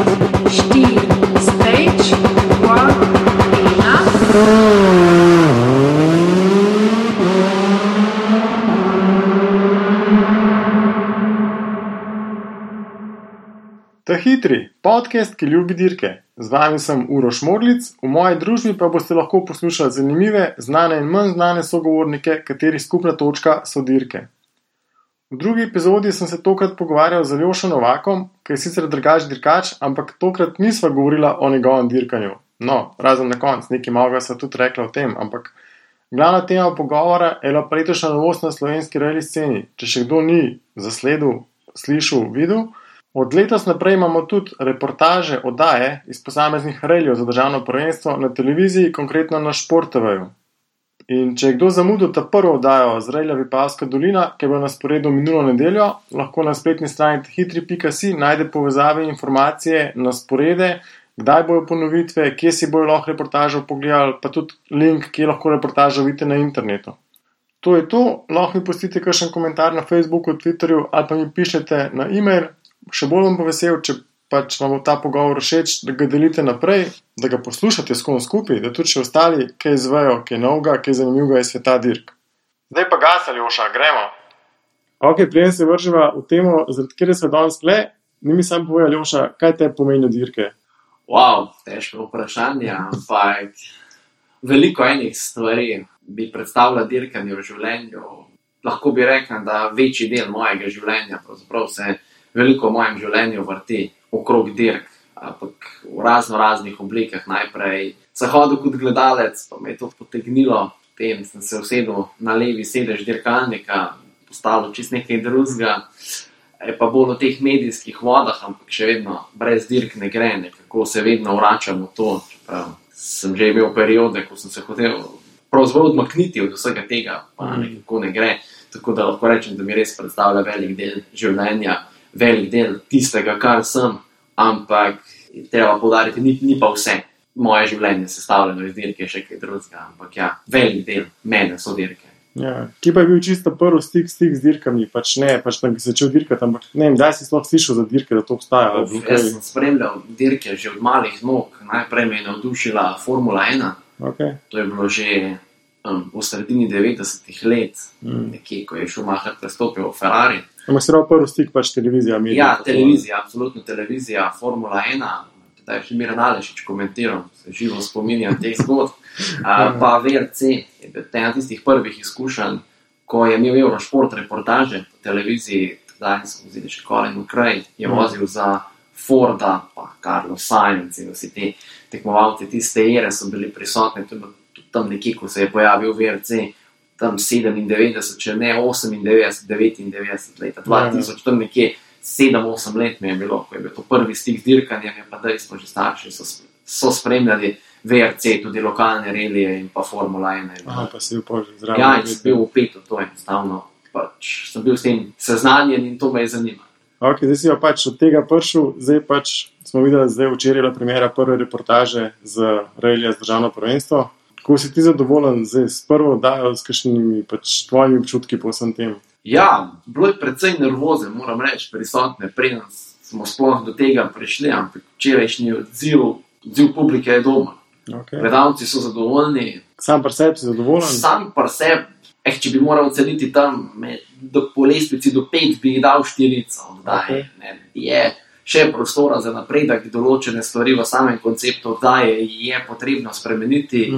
4, stage, 1, enough. Ta hitri, podcast, ki ljubi dirke. Z vami sem Uroš Modlic, v moji družbi pa boste lahko poslušali zanimive, znane in manj znane sogovornike, katerih skupna točka so dirke. V drugi epizodi sem se tokrat pogovarjal z Aljošo Novakom, ki je sicer drugačen dirkač, ampak tokrat nisva govorila o njegovem dirkanju. No, razen na koncu, nekaj malega sva tudi rekla o tem, ampak glavna tema pogovora je bila letošnja novost na slovenski rally sceni. Če še kdo ni zasledil, slišal, videl, od letos naprej imamo tudi reportaže, oddaje iz posameznih rallyjev za državno prvenstvo na televiziji, konkretno na Šport TV-ju. In če je kdo zamudil ta prvo oddajo z rallija Vipavska dolina, ki je bila na sporedu minulo nedeljo, lahko na spletni strani hitri.si najde povezave in informacije na sporede, kdaj bojo ponovitve, kje si bojo lahko reportažo pogledali, pa tudi link, kje lahko reportažo vidite na internetu. To je to, lahko mi pustite kakšen komentar na Facebooku, Twitterju ali pa mi pišete na e-mail. Še bolj bom pa vesel, če pač vam bo ta pogovor všeč, da ga delite naprej, da ga poslušate s kom skupaj, da tudi še ostali kaj izvejo, kaj novega, kaj zanimivega iz sveta dirk. Zdaj pa gas, Aljoša, gremo. Ok, preden se vrževa v temo, zaradi kjer se danes tle, ni mi sam povej, Aljoša, kaj te pomeni dirke? Wow, težko vprašanje, ampak veliko enih stvari bi predstavila dirkanje v življenju. Lahko bi rekel, da večji del mojega življenja, pravzaprav se veliko v mojem življenju vrti okrog dirk, ampak v raznih oblikah. Najprej sem hodil kot gledalec, pa me je to potegnilo, potem sem se usedel na levi sedež dirkalnika, postalo čisto nekaj drugega, pa bolj o teh medijskih vodah, ampak še vedno brez dirk ne gre, nekako se vedno vračam v to, čeprav sem že imel periode, ko sem se hotel pravzaprav odmakniti od vsega tega, pa nekako ne gre, tako da lahko rečem, da mi res predstavlja velik del življenja, velik del tistega, kar sem, ampak treba poudariti, ni pa vse moje življenje sestavljeno iz dirke, še kaj drugega, ampak ja, velik del mene so dirke. Ja, ki pa je bil čisto prvi stik z dirkami, pač ne, pač da bi začel dirkati, ampak ne vem, daj si sploh slišal za dirke, da to obstaja. Jaz sem spremljal dirke že od malih nog, najprej me je navdušila Formula 1, Okay. To je bilo že v sredini 90-ih let, nekje, ko je Schumacher prestopil v Ferrari. Ampak se pravi prvi stik pač televizija. Medij, ja, televizija, absolutno televizija, Formula 1, da je še Miran Alešič komentiral, se živo spominjam teh zgodb. Pa VRC je bil ena tistih prvih izkušenj, ko je imel Eurošport reportaže po televiziji, zdaj smo vzeli še Colin McRae, je vozil za Forda, pa Carlos Sainz in vsi ti tekmovalci tiste ere so bili prisotni, tudi tam nekje, ko se je pojavil VRC, tam 97, če ne 98, 99 leta, 2000, tam nekje 7-8 let mi je bilo, ko je bil to prvi stik z dirkanjem, pa da smo že starši, so spremljali VRC, tudi lokalne relije in pa Formula 1. Aha, pa si bil že zraven. Ja, in sem bil vpet v to enostavno, pač sem bil s tem seznanjen in to me je zanimalo. Ok, zdaj si jo pač od tega prišel, zdaj pač smo videli, zdaj včeraj je bila premiera prve reportaže z rallija z državno prvenstvo. Kako si ti zadovoljen zdaj s prvo oddajo, s kakšnimi pač tvojimi občutki po vsem tem? Ja, bilo je precej nervoze, moram reči, prisotne, preden smo sploh do tega prišli, ampak včerajšnji odziv publike je doma. Okay. Gledalci so zadovoljni. Sam pri sebi si zadovoljen? Sam pri sebi, če bi moral oceniti tam po lestvici do 5, bi dal 4. Okay. Je še prostora za napredek, določene stvari v samem konceptu oddaje je potrebno spremeniti.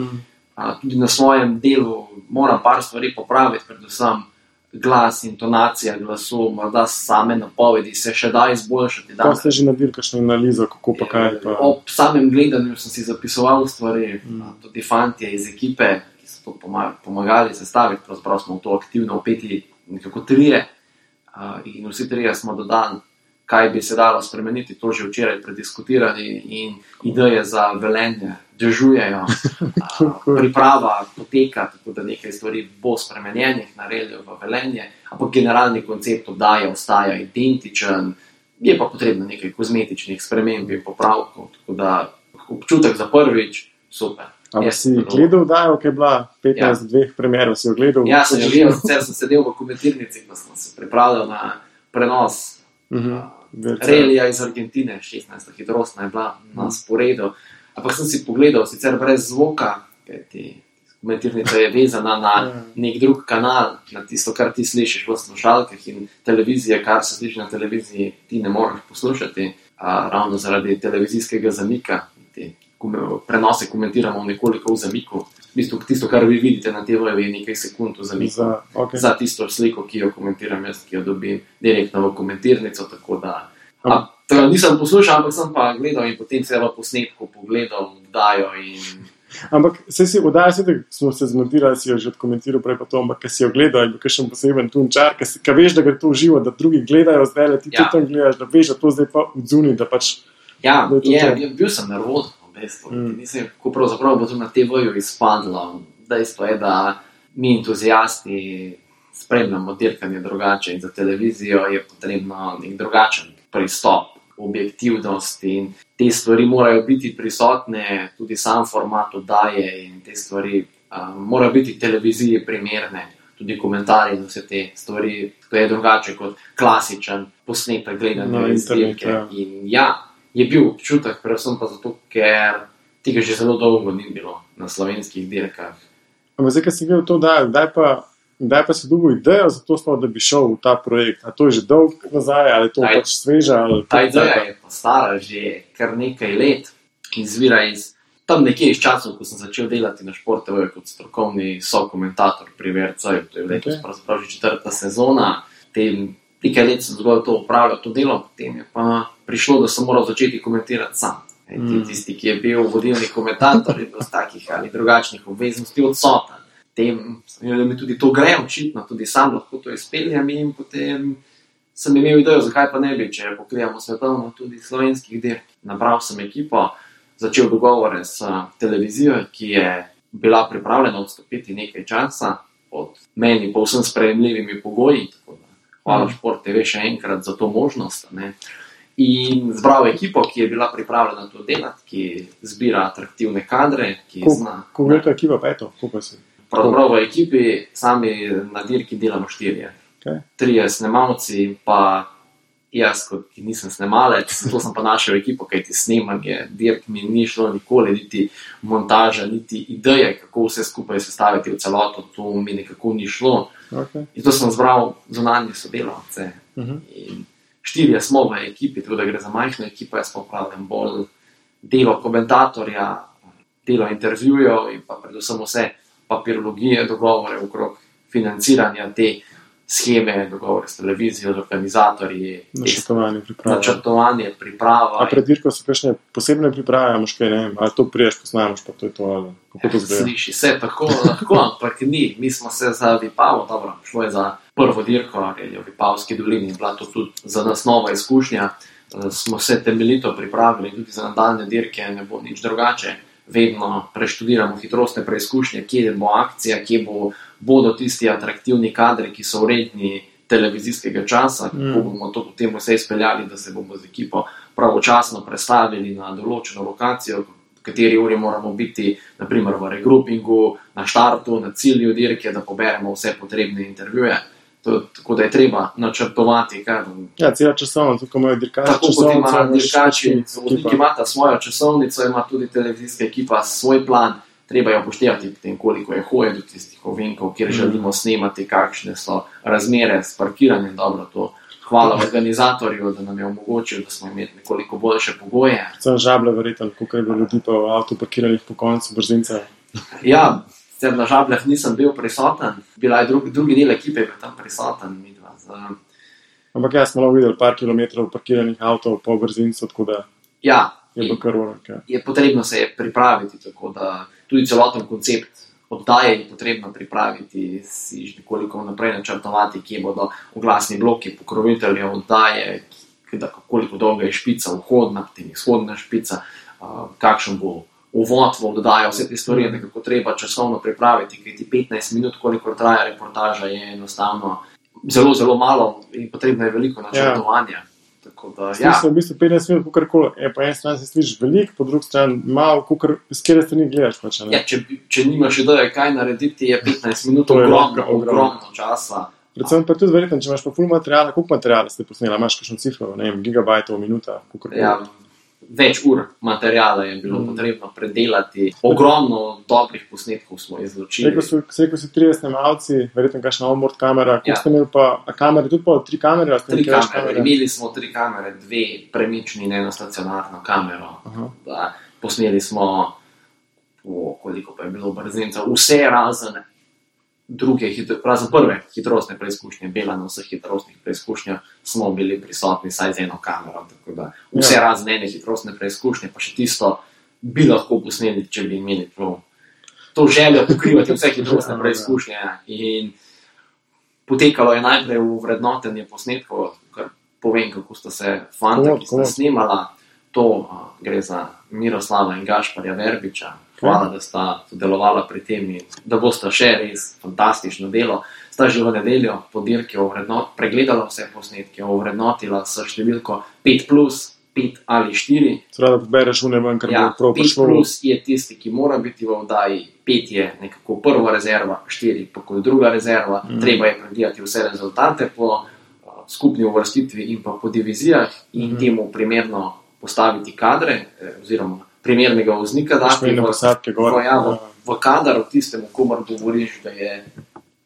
Tudi na svojem delu moram par stvari popraviti, predvsem glas, intonacija glasu, morda same napovedi se še da izboljšati. Ko ste že naredili kakšno analizo, kako pa kaj? Pa... Ob samem gledanju sem si zapisoval stvari, tudi fantje iz ekipe, ki so to pomagali sestaviti, pravzaprav smo v to aktivno vpeti nekako 3 in vsi 3 smo dodali, kaj bi se dalo spremeniti, to že včeraj prediskutirali in ideje za Velenje dežujejo, priprava poteka, tako da nekaj stvari bo spremenjenih na ralliju v Velenje, ampak generalni koncept oddaje ostaja identičen, je pa potrebno nekaj kozmetičnih sprememb in popravkov, tako da občutek za prvič, super. Ampak si gledal oddajo, ki je bila 15 dveh premierov, si jo gledal? Ja, sem jo gledal, sicer sem sedel v komentirnici, ko sem se pripravljal na prenos Relija iz Argentine, 16. hitrostna je bila na sporedu. Ampak sem si pogledal, sicer brez zvoka, kajti komentirnica je vezana na nek drug kanal, na tisto, kar ti slišiš v slušalkah, in televizije, kar se sliši na televiziji, ti ne moreš poslušati, ravno zaradi televizijskega zamika. Prenose komentiramo nekoliko v zamiku. V bistvu tisto, kar vi vidite na TV-ju, je nekaj sekund v zamiku za tisto sliko, ki jo komentiram jaz, ki jo dobim direktno v komentirnico, tako da nisem poslušal, ampak sem pa gledal in potem se v posnetku pogledal, dajo in... Ampak se oddaja, smo se zmontirali, si jo že odkomentiral prej pa to, ampak kaj si jo gledal, je bil kakšen poseben tunčar, kaj veš, da gre to v živo, da drugi gledajo zdaj, ti tudi tam gledaš, da veš, da to zdaj pa odzuni, da pač... Ja, bil sem nervozen. Nisem, kako pravzaprav bo to na TV-ju izpadlo. Dejstvo je, da mi entuzijasti spremljamo dirkanje drugače in za televizijo je potrebno nek drugačen pristop, objektivnost in te stvari morajo biti prisotne, tudi sam format oddaje in te stvari morajo biti televiziji primerne, tudi komentarji in vse te stvari, to je drugače kot klasičen posnetek gledanja iz dirke. In je bil občutek, predvsem pa zato, ker tega že zelo dolgo ni bilo na slovenskih dirkah. Ampak zdaj, ko si gledal to, kdaj pa si dobil idejo za to, da bi šel v ta projekt? A to je že dolg nazaj, ali to pač sveža? Ta ideja je pa stara že kar nekaj let in izvira iz tam nekje iz časov, ko sem začel delati na Šport TV kot strokovni sokomentator pri VRC-ju. To je letos pravzaprav že 4. sezona. Nekaj let sem zgolj to upravljal, to delo, potem je pa prišlo, da sem moral začeti komentirati sam. Tisti, ki je bil vodilni komentator, je bil z takih ali drugačnih obveznosti odsoten. Potem mi tudi to gre očitno, tudi sam lahko to izpeljem in potem sem imel idejo, zakaj pa ne bi, če pokrijamo svetovno tudi slovenskih dirk. Nabral sem ekipo, začel dogovore s televizijo, ki je bila pripravljena odstopiti nekaj časa pod meni povsem sprejemljivimi pogoji, tako da hvala Šport TV še enkrat za to možnost. In zbral ekipo, ki je bila pripravljena to delati, ki zbira atraktivne kadre. Kako je to ekipa pa je to? Pravzaprav v ekipi sami na dirki delamo 4. 3 snemalci, pa jaz, ki nisem snemalec, zato sem pa našel ekipo, kajti snemanje dirk mi ni šlo nikoli, niti montaža, niti ideje, kako vse skupaj sestaviti v celoto, to mi nekako ni šlo. In to sem zbral zunanje sodelavce. In 4 smo v ekipi, tako da gre za majhno ekipo, jaz pa upravljam bolj delo komentatorja, delo intervjujev in pa predvsem vse papirologije, dogovore okrog financiranja te scheme, dogovore s televizijo, z organizatorji, načrtovanje, priprava. A pred dirko so kakšne posebne priprave, kaj ne vem, ali to priješ, posnameš, pa to je to, ali kako to zgleda? Sliši se tako lahko, ampak ni. Mi smo se za Vipavo, dobro, šlo je za prvo dirko, je v Vipavski dolini, bila to tudi za nas nova izkušnja. Smo se temeljito pripravili, tudi za nadaljne dirke ne bo nič drugače. Vedno preštudiramo hitrostne preizkušnje, kje bo akcija, kje bodo tisti atraktivni kadri, ki so vredni televizijskega časa, kako bomo to potem vse izpeljali, da se bomo z ekipo pravočasno prestavili na določeno lokacijo, v kateri uri moramo biti, naprimer v regroupingu, na štartu, na cilju dirke, da poberemo vse potrebne intervjuje. Tako da je treba načrtovati. Ja, cela časovnica, tako imajo dirkači. Tako kot ima dirkači, vodniki imata svojo časovnico, ima tudi televizijska ekipa svoj plan, treba je upoštevati potem, koliko je hoje do tistih ovinkov, kjer želimo snemati, kakšne so razmere s parkiranjem. Dobro, to hvala organizatorju, da nam je omogočil, da smo imeli nekoliko boljše pogoje. Predvsem žable verjetno, koliko je bilo ljudi pa v avtu parkiranih po koncu brzinca. Ja, na Žabljah nisem bil prisoten, bila je drugi del ekipe, je bil tam prisoten. Ampak jaz smo videli par kilometrov parkiranih avtov po brzincu, tako da je bilo kar urak. Je potrebno se pripraviti, tako da tudi celoten koncept oddaje je potrebno pripraviti, si že nekoliko naprej načrtovati, kje bodo oglasni bloki pokroviteljev oddaje, koliko dolga je špica vhodna, potem izhodna špica, kakšen bo uvod v oddajo, vse te stvari je nekako treba časovno pripraviti, kajti 15 minut, koliko traja reportaža, je enostavno zelo, zelo malo in potrebno je veliko načrtovanja. Slišal v bistvu 15 minut, kakorkoli, po eni strani se slišiš veliko, po drugi strani malo, s kjer strani gledaš. Če nimaš ideje, kaj narediti, je 15 minut ogromno časa. Predvsem pa tudi verjetno, če imaš pa ful materijala, koliko materijala ste posneli, imaš kakšno cifro, ne vem, gigabajtov, minuta, kakorkoli. Ja, več ur materijala je bilo potrebno predelati. Ogromno dobrih posnetkov smo izločili. Rekel si 30 snemalci, verjetno kakšna onboard kamera, koliko Ja. ste imeli pa, a kamere, tudi pa 3 kamere? Ali ste 3 imeli kaj več kamere. Imeli smo 3 kamere, 2 premični in 1 stacionarno kamero. Aha. Da, posneli smo, koliko pa je bilo brzincev, vse razen razen prve hitrostne preizkušnje, Bela na vseh hitrostnih preizkušnjah smo bili prisotni saj z eno kamero, tako da vse Ja. razen ene hitrostne preizkušnje, pa še tisto bi lahko posneli, če bi imeli to željo pokrivati vse hitrostne preizkušnje. In potekalo je najprej v vrednotenje posnetkov, kar povem, kako sta se fanta, ki sta snemala. To gre za Miroslava in Gašparja Verbiča. Hvala, da sta sodelovala pri tem in da bosta še res fantastično delo. Sta že v nedeljo po dirki pregledala vse posnetke, ovrednotila s številko 5+, 5 ali 4. Seveda, da pobereš une ven, kar Ja, bo prav 5 prišlo. plus je tisti, ki mora biti v oddaji, 5 je nekako prva rezerva, 4 pa kot druga rezerva. Treba je pregledati vse rezultate po skupni uvrstitvi in pa po divizijah in temu primerno postaviti kadre, oziroma primernega voznika dati v kadar, v tistemu, komar govoriš, da je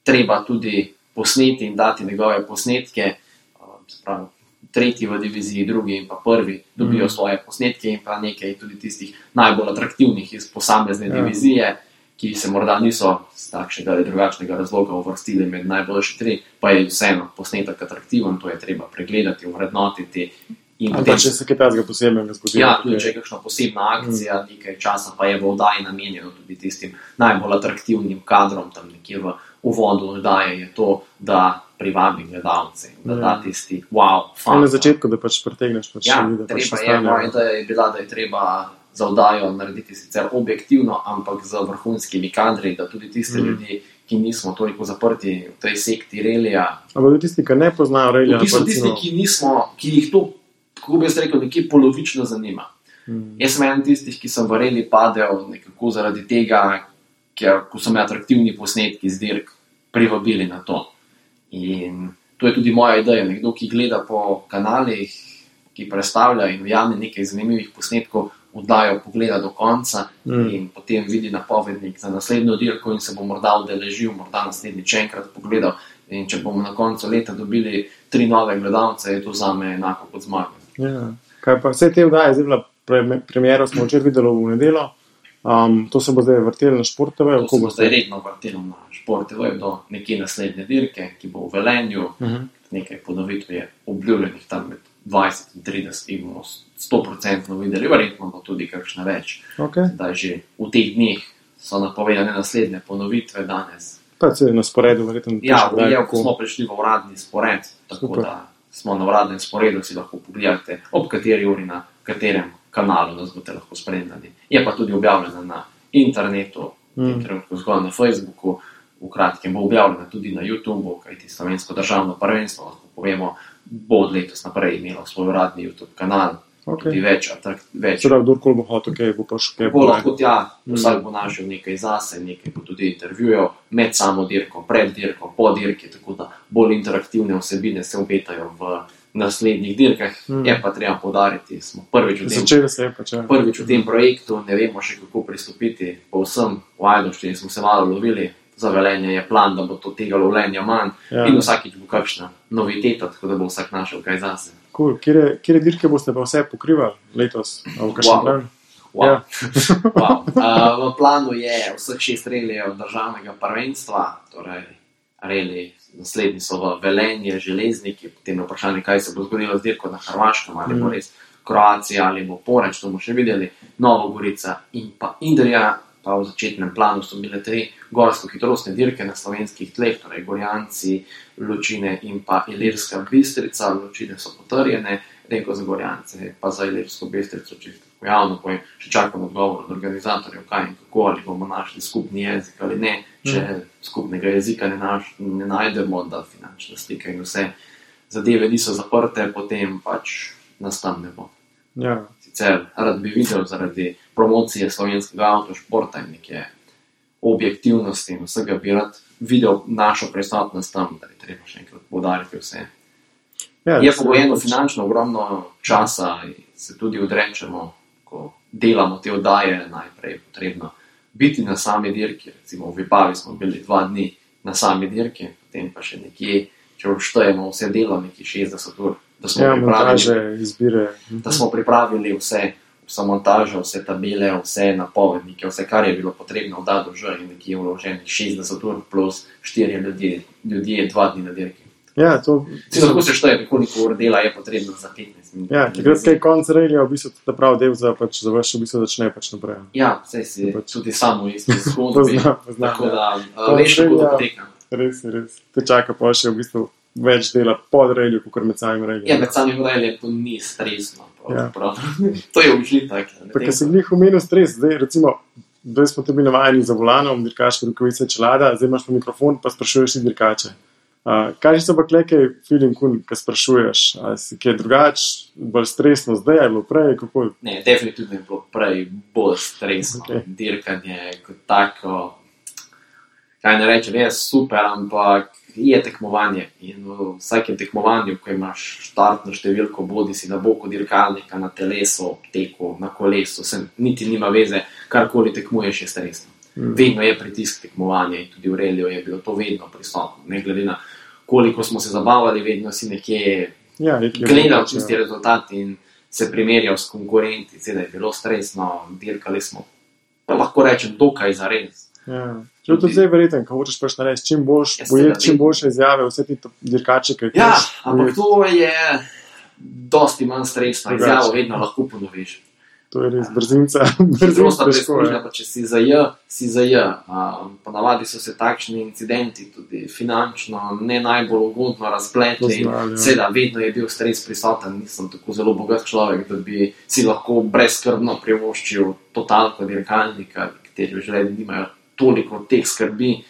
treba tudi posneti in dati njegove posnetke. Spravi, tretji v diviziji, drugi in pa prvi dobijo svoje posnetke in pa nekaj tudi tistih najbolj atraktivnih iz posamezne divizije, ki se morda niso z takšnega ali drugačnega razloga uvrstili med najboljši 3, pa je vseeno posnetek atraktiven, to je treba pregledati, ovrednotiti. Ali pa če se kaj takega posebnega zgodi. Ja, tudi če je kakšna posebna akcija, nekaj časa pa je v oddaji namenjeno tudi tistim najbolj atraktivnim kadrom, tam nekje v uvodu oddaje je to, da privabi gledalce, da da tisti wow, Na začetku, da pač pretegneš pač ja, ljudi, da pač treba je, moja ideja je bila, da je treba za oddajo narediti sicer objektivno, ampak z vrhunskimi kadri, da tudi tiste ljudi, ki nismo toliko zaprti v tej sekti relija. Ampak tudi tisti, ki ne poznajo relija. V bistvu tisti, ki jih to, kako bi jaz rekel, nekje polovično zanima. Jaz sem eden tistih, ki sem v reli padel nekako zaradi tega, ker ko so me atraktivni posnetki z dirk privabili na to. In to je tudi moja ideja. Nekdo, ki gleda po kanalih, ki predstavlja in ujame nekaj zanimivih posnetkov, oddajo pogleda do konca in potem vidi napovednik za naslednjo dirko in se bo morda udeležil, morda naslednjič enkrat pogledal. In če bomo na koncu leta dobili 3 nove gledalce, je to zame enako kot zmaga. Ja. Kaj pa vse te oddaje, zdaj bila premiera, smo včeraj videli v nedeljo. To se bo zdaj vrtelo na Šport TV? To se bo zdaj redno vrtelo na Šport TV do nekje naslednje dirke, ki bo v Velenju. Nekaj ponovitev je obljubljenih tam med 20 in 30 in bomo 100% videli, verjetno bo tudi kakšna več. Da že v teh dneh so napovedane naslednje ponovitve danes. Pa se na sporedu verjetno. Ja, ko smo prišli v uradni spored, tako da smo na uradnem sporedu, si lahko pogledate, ob kateri uri na katerem kanalu nas boste lahko spremljali. Je pa tudi objavljena na internetu, trenutno zgolj na Facebooku, v kratkem bo objavljena tudi na YouTubeu, kajti Slovensko državno prvenstvo, lahko povemo, bo od letos naprej imelo svoj uradni YouTube kanal. Tudi več. Sedaj, kdorkoli bo hotel, kaj bo paš kaj bo lahko tja, vsak bo našel nekaj zase, nekaj bo tudi intervjujev med samo dirko, pred dirko, po dirki, tako da bolj interaktivne vsebine se obetajo v naslednjih dirkah. Je pa treba poudariti, smo prvič v tem projektu, ne vemo še kako pristopiti, povsem v Ajdovščini smo se malo lovili, za Velenje je plan, da bo to tega lovljenja manj in vsakič bo kakšna noviteta, tako da bo vsak našel kaj zase. Cool. Kjere dirke boste pa vse pokrivali letos? V planu je vseh 6 relijev državnega prvenstva, torej reli naslednji so v Velenje, Železniki, potem vprašanje, kaj se bo zgodilo z dirko na Hrvaškem, ali bo res Kroacija, ali bo Poreč, to bomo še videli, Nova Gorica in pa Idrija. Pa v začetnem planu so bile 3 gorsko-hitrostne dirke na slovenskih tleh, torej Gorjanci, Ločine in pa Ilirska Bistrica. Ločine so potrjene, Reko za Gorjance, pa za Ilirsko Bistrico, čisto javno povem, še čakam odgovor od organizatorjev, kaj in kako, ali bomo našli skupni jezik ali ne. Če skupnega jezika ne najdemo, da finančna slika in vse zadeve niso zaprte, potem pač nas tam ne bo. Sicer rad bi videl zaradi promocije slovenskega avtošporta in neke objektivnosti in vsega bi rad videl našo prisotnost tam, da je treba še enkrat poudariti vse. Ja, Je pogojeno finančno ogromno časa in se tudi odrečemo, ko delamo te oddaje, najprej je potrebno biti na sami dirki. Recimo v Vipavi smo bili 2 dni na sami dirki, potem pa še nekje, če vštejemo vse delo, nekje 60 ur, montaže, izbire. da smo pripravili vse montažo, vse tabele, vse napovednike, vse, kar je bilo potrebno v dadu že in nekje vloženih 60 ur plus 4 ljudje 2 dni na dirki. Ja, to... Lahko se šteje, koliko ur dela je potrebno za 15 minut. Ja, takrat, kaj konc relija, v bistvu ta prav del za vaš v bistvu začne naprej. Ja, saj si tudi samo v isti zgodbi. Poznam, tako da veš, kako to poteka. Res. Te čaka pa še v bistvu več dela pod relju, kot med samim reljem. Ja, med samim reljem to ni stresno. Ja. To je užitek. Pa, ker si glih omenil stres, zdaj smo te bili navajeni za volanom, dirkaške rokavice, čelada, zdaj imaš pa mikrofon, pa sprašuješ si dirkače. Kaj so pa nekaj feeling, ko sprašuješ? Ali si kaj drugač, bolj stresno zdaj, ali bilo prej? Kako? Ne, definitivno je bilo prej bolj stresno. Okay. Dirkanje kot tako, kaj ne rečem, je super, ampak je tekmovanje. In v vsakem tekmovanju, ko imaš štartno številko, bodi si na boku dirkalnika, na telesu, teku, na kolesu, niti nima veze, karkoli tekmuješ, je stresno. Vedno je pritisk tekmovanja in tudi v reliju je bilo to vedno prisotno. Ne glede na koliko smo se zabavali, vedno si nekje gledal čisti rezultat in se primerjal s konkurenti. Seveda je bilo stresno, dirkali smo, pa lahko rečem, dokaj zares. Ja. Če to zdaj verjeten, ko hočeš pač narediti čim boljše izjave, vse ti dirkače, kaj ja, ampak to je dosti manj stresno, izjavo vedno lahko ponoviš. To je res brzinca. Prosta preizkušnja, pa če si za J, si za J. Ponavadi so se takšni incidenti tudi finančno ne najbolj ugodno razpletli. Seveda, vedno je bil stres prisoten, nisem tako zelo bogat človek, da bi si lahko brezskrbno privoščil totalko dirkalnika, kateri v življenju nimajo toliko teh skrbi.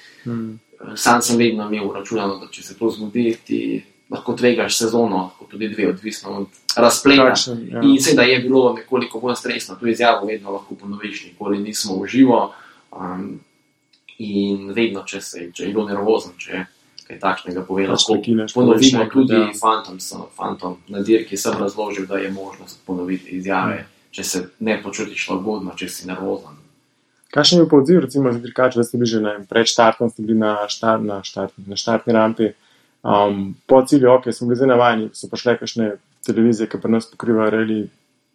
Sam sem vedno imel računano, da če se to zgodi, ti lahko tvegaš sezono, tudi 2, odvisno od razpleta. Ja. In seveda je bilo nekoliko bolj stresno, to izjavo vedno lahko ponoviš, nikoli nismo v živo. In vedno, če je bilo nervozen, če kaj takšnega pove, lahko ponovimo tudi fantom na dirki, sem razložil, da je možnost ponoviti izjave, če se ne počutiš lagodno, če si nervozen. Kakšen je pa odziv, recimo, za dirkače, da ste bili že pred štartom, ste bili na štartni rampi, po cilju, smo bili zdaj navajeni, so pa šle kakšne televizije, ki pri nas pokrivajo reli,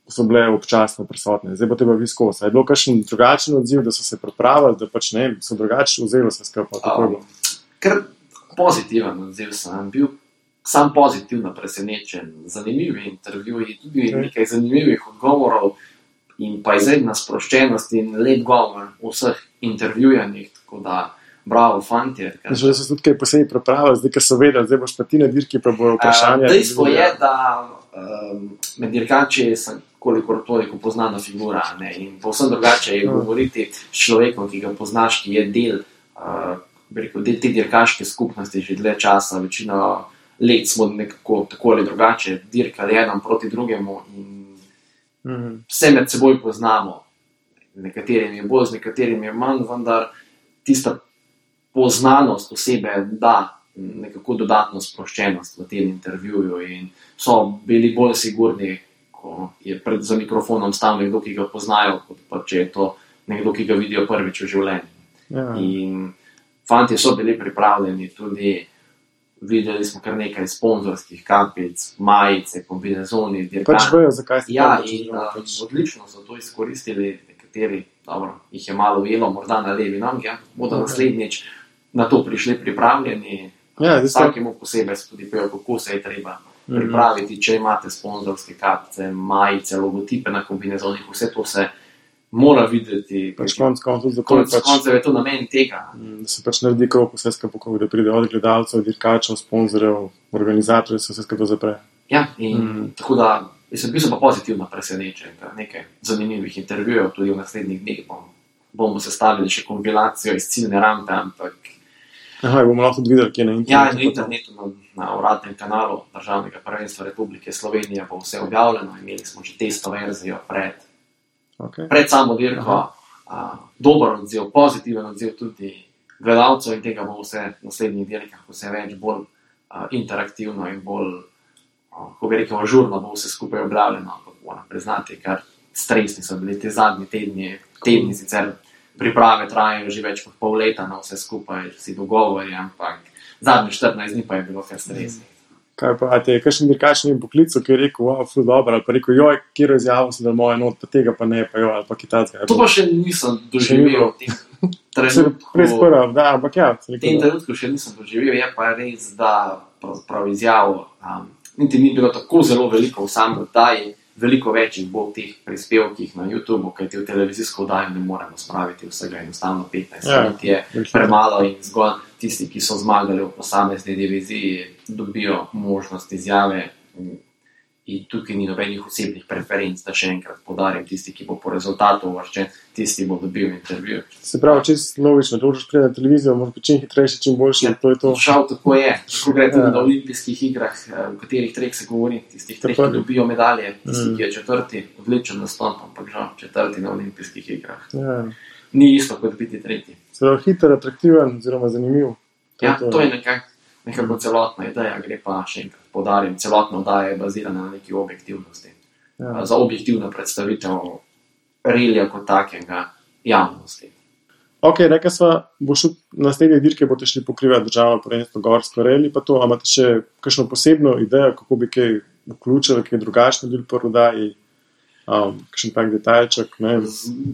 so bile občasno prisotne. Zdaj bo teba viskos. Je bilo kakšen drugačen odziv, da so se pripravili, da pač ne, so drugače vzeli se skupaj? Ker pozitiven odziv sem bil, sam pozitivno presenečen, zanimivi intervjuji, tudi nekaj zanimivih odgovorov in pa izredna sproščenost in lep govor v vseh intervjujanjih, tako da bravo, fantje. Že so tudi kaj posebej pripravili, zdaj, ker so vedeli, zdaj boš pa ti na dirki, pa bojo vprašanja. Dejstvo je, da med dirkači sem kolikor toliko poznana figura, ne? In povsem drugače je govoriti s človekom, ki ga poznaš, ki je del te dirkaške skupnosti že dlje časa, večino let smo nekako tako ali drugače dirkali eden proti drugemu in vse med seboj poznamo. Nekaterim je bolj, z nekaterim je manj, vendar tista poznanost osebe da nekako dodatno sproščenost v tem intervjuju in so bili bolj sigurni, ko je za mikrofonom stal nekdo, ki ga poznajo, kot pa če je to nekdo, ki ga vidijo prvič v življenju. Ja. In fantje so bili pripravljeni, tudi videli smo kar nekaj sponzorskih kapic, majice, kombinezoni, dirkači. Pač vejo, zakaj ste odlično so to izkoristili, nekateri, dobro, jih je malo ujelo, morda na levi nogi, bodo naslednjič na to prišli pripravljeni. Vsakemu posebej se tudi pejo, kako se je treba pripraviti, če imate sponzorske kapice, majice, logotipe na kombinezonih, vse to se mora videti. Pač konc je to namen tega. Da se pač naredi krog vse skupaj, da pride od gledalcev, dirkačev, sponzorjev, organizatorjev, se vse skupaj zapre. Ja, in tako da bil sem pa pozitivno presenečen, nekaj zanimivih intervjujev, tudi v naslednjih dneh bomo sestavili še kompilacijo iz ciljne rampe, ampak bomo lahko videli, kje na internetu. Ja, na internetu, na uradnem kanalu Državnega prvenstva Republike Slovenije bo vse objavljeno, imeli smo že testo verzijo pred samo dirko, dober odziv, pozitiven odziv tudi gledalcev in tega bo vse v naslednjih dirkah vse več, bolj interaktivno in bolj, ko bi rekel, ažurno bo vse skupaj objavljeno, ampak moram priznati, ker stresni so bili te zadnji tedni sicer priprave trajajo že več kot pol leta na vse skupaj, vsi dogovori, ampak zadnji 14 dni pa je bilo kar stresni. Kaj pa, a te je kakšen dirkačni poklic, ki je rekel, wow, ful dobro, ali pa rekel, joj, kjero izjavo si dal moje not, pa tega pa ne, pa joj, ali pa kitajska. To pa še nisem doživel v tem trenutku. Ampak ja. V tem trenutku še nisem doživel, je pa res, da pravzaprav izjavo niti ni bilo tako zelo veliko v samem oddaji, veliko več jih bo v teh prispevkih na YouTubeu, kajti v televizijsko oddajo ne moremo spraviti vsega, enostavno 15 minut je premalo in zgolj tisti, ki so zmagali v posamezni diviziji, dobijo možnost izjave in tukaj ni nobenih osebnih preferenc, da še enkrat poudarim, tisti, ki bo po rezultatu uvrščen, tisti bo dobil intervju. Se pravi, čisto logično, da boš priti na televizijo, moraš biti čim hitrejši, čim boljši, to je to. Žal tako je, tako gre tudi na olimpijskih igrah, v katerih treh se govori, tistih treh, ki dobijo medalje, tisti, ki je četrti, odličen nastop, ampak žal četrti na olimpijskih igrah. Ja. Ni isto kot biti tretji. Se pravi, hiter, atraktiven, oziroma zanimiv. To je nekako celotna ideja, gre pa še enkrat poudarim, celotna oddaja je bazirana na neki objektivnosti. Ja. Za objektivno predstavitev relija kot takega javnosti. Ok, rekla sva, boš na naslednje dirke boste šli pokrivati državno prvenstvo gorsko reli, pa to, a imate še kakšno posebno idejo, kako bi kaj vključili, kaj drugačno bil po oddaji, kakšen tak detajlček, ne?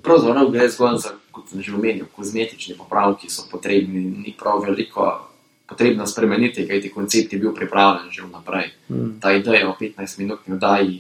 Pravzaprav gre zgolj za, kot sem že omenil, kozmetični popravki so potrebni, ni prav veliko potrebno spremeniti, kajti koncept je bil pripravljen že vnaprej. Ta ideja o 15-minutni oddaji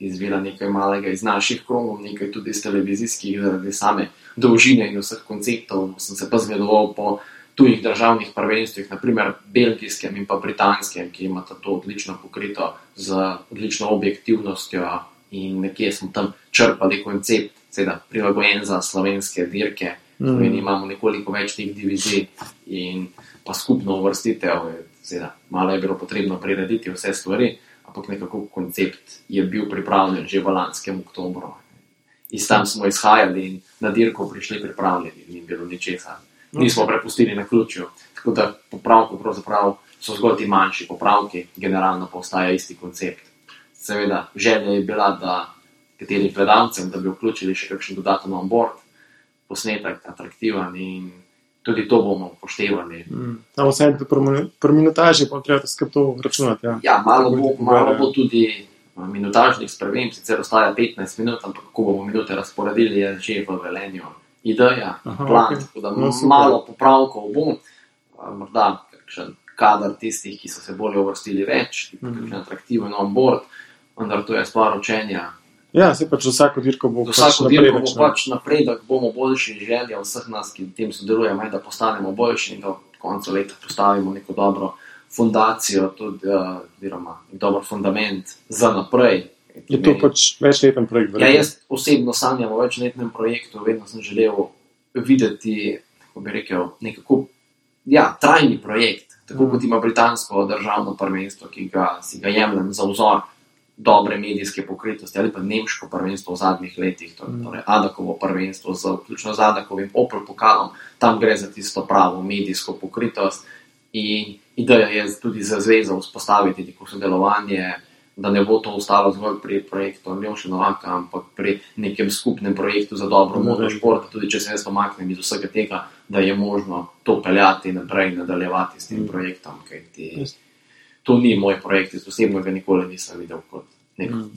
izvira nekaj malega iz naših krogov, nekaj tudi iz televizijskih, zaradi same dolžine in vseh konceptov. Sem se pa zgledoval po tujih državnih prvenstvih, naprimer belgijskem in pa britanskem, ki imata to odlično pokrito z odlično objektivnostjo in nekje smo tam črpali koncept, seveda prilagojen za slovenske dirke, in imamo nekoliko več teh divizij in pa skupno uvrstitev, seveda, malo je bilo potrebno prirediti vse stvari, ampak nekako koncept je bil pripravljen že v lanskem oktobru. In tam smo izhajali in na dirko prišli pripravljeni, ni bilo ničesar. Nismo prepustili na ključju, tako da popravkov pravzaprav so zgolj ti manjši popravki, generalno pa ostaja isti koncept. Seveda, želja je bila, da kateri gledalcem, da bi vključili še kakšen dodaten onboard, posnetek atraktiven in tudi to bomo upoštevali. Samo vse pri minutaži pa treba skrb to računati. Ja, malo bo tudi minutažnih sprememb, sicer ostaja 15 minut, ampak kako bomo minute razporedili, je že v Velenju ideja, plan, tako da malo popravkov bo, morda kakšen kadar tistih, ki so se bolje uvrstili več, kakšen atraktiven onboard, vendar to je stvar učenja. Ja, se pač vsako dirko bo napredek, bomo boljši, želja vseh nas, ki v tem sodelujemo, da postanemo boljši in da v koncu leta postavimo neko dobro fundacijo, tudi dober fundament za naprej. Je to pač večleten projekt? Ja, jaz osebno sanjam o večletnem projektu, vedno sem želel videti, kako bi rekel, nekako, trajni projekt, tako kot ima britansko državno prvenstvo, ki si ga jemljem za vzor dobre medijske pokritosti, ali pa nemško prvenstvo v zadnjih letih, torej Adakovo prvenstvo, vključno z Adakovim Opel pokalom, tam gre za tisto pravo medijsko pokritost in ideja je tudi za zvezo vzpostaviti neko sodelovanje, da ne bo to ostalo zgolj pri projektu Aljoše Novaka, ampak pri nekem skupnem projektu za dobro motošport, tudi če se jaz pomaknem iz vsega tega, da je možno to peljati naprej in nadaljevati s tem projektom, kajti to ni moj projekt, jaz osebno ga nikoli nisem videl kot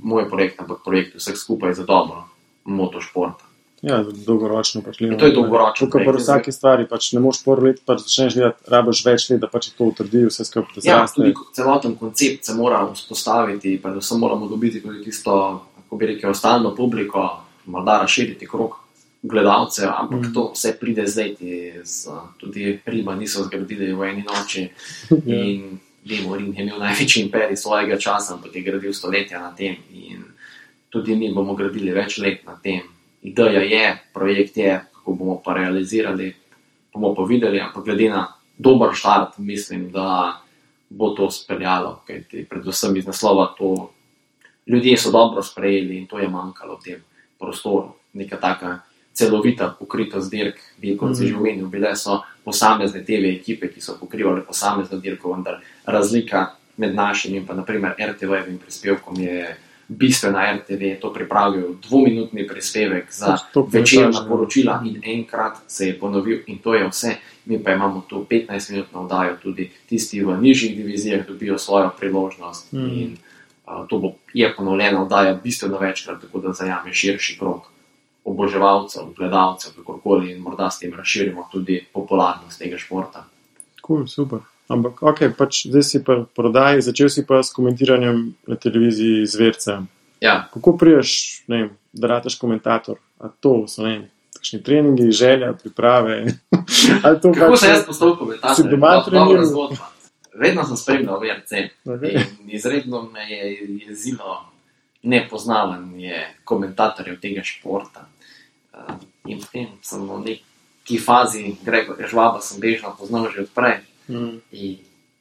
moj projekt, ampak projekt vseh skupaj za dobro motošporta. Ja, dolgoročno pač gledamo. To je dolgoročno. Tukaj pa vsake stvari, pač ne moš prvo let, pač začneš gledati, rabiš več let, da pač to utrdi vse skupaj. Ja, tudi celoten koncept se mora vzpostaviti, predvsem moramo dobiti tudi tisto, kako bi rekel, stalno publiko, morda razširiti krog gledalcev, ampak to vse pride zdaj, tudi Rima niso zgradili v eni noči in Rim je imel največji imperij svojega časa, ampak je gradil stoletja na tem in tudi mi bomo gradili več let na tem. Ideja je, projekt je, kako bomo pa realizirali, bomo pa videli, ampak glede na dober štart, mislim, da bo to speljalo, kajti predvsem iz naslova to ljudje so dobro sprejeli in to je manjkalo v tem prostoru. Neka taka celovita pokritost dirk, kot si že omenil, bile so posamezne TV ekipe, ki so pokrivale posamezno dirko, vendar razlika med našim in pa naprimer RTV-evim prispevkom je bistvena. RTV je to pripravil 2-minutni prispevek za večerna poročila in enkrat se je ponovil in to je vse. Mi pa imamo tu 15-minutno oddajo, tudi tisti v nižjih divizijah dobijo svojo priložnost in to je ponovljena oddaja bistveno večkrat, tako da zajame širši krog oboževalcev, gledalcev, kakorkoli in morda s tem razširimo tudi popularnost tega športa. Cool, super. Ampak, pač zdaj si pa prodaji, začel si pa s komentiranjem na televiziji Zverca. Ja. Kako priješ, da rataš komentator? A to so, takšni treningi, želja, priprave? Kako se jaz postal komentator? Si doma treniral? Vedno sem spremljal VRC in izredno me je jezilo nepoznavanje komentatorjev tega športa. In potem sem v neki fazi Gregorja Žvaba sem bežno poznal že odprej. In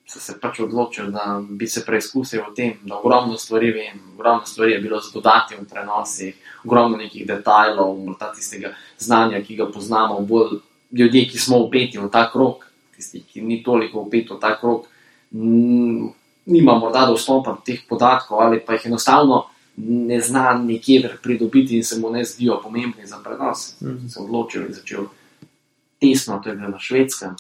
sem se pač odločil, da bi se preizkusil v tem, da ogromno stvari vem, ogromno stvari je bilo zadodati v prenosih, ogromno nekih detajlov, morda tistega znanja, ki ga poznamo, bolj ljudje, ki smo vpeti v ta krog, tisti, ki ni toliko vpeti v ta krog, nima morda dostopa do teh podatkov ali pa jih enostavno ne zna nekje pridobiti in se mu ne zdijo pomembni za prenos. Sem se odločil in začel tesno, to je bilo na Švedskem,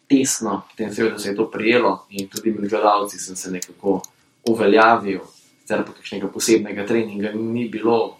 tesno, potem seveda se je to prijelo in tudi med gledalci sem se nekako uveljavil, sicer pa kakšnega posebnega treninga ni bilo,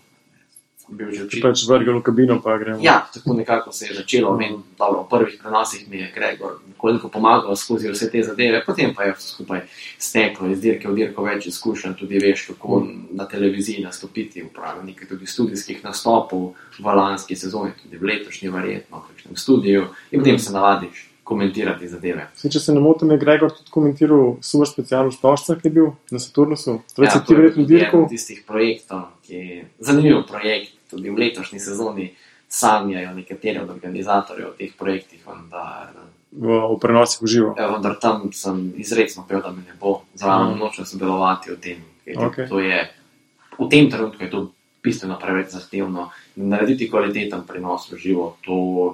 sem bil že pač vrgel v kabino pa gremo. Ja, tako nekako se je začelo. Dobro, v prvih prenosih mi je Gregor nekoliko pomagal skozi vse te zadeve, potem pa je vse skupaj steklo iz dirke v dirko več izkušenj, tudi veš, kako na televiziji nastopiti, upravljal nekaj tudi studijskih nastopov v lanski sezoni, tudi v letošnji verjetno, v kakšnem studiju in potem se navadiš komentirati zadeve. Če se ne motim, je Gregor tudi komentiral Super special v Stožcah, ki je bil na Saturnusu. Ja, to je tudi eden tistih projektov, ki je zanimiv projekt, tudi v letošnji sezoni sanjajo nekateri od organizatorjev teh projektih, vendar v prenosih v živo. Ja, vendar tam sem izrecno pel, da me ne bo zraven nočno sodelovati v tem. To je, v tem trenutku je to bistveno preveč zahtevno. Narediti kvaliteten prenos v živo, to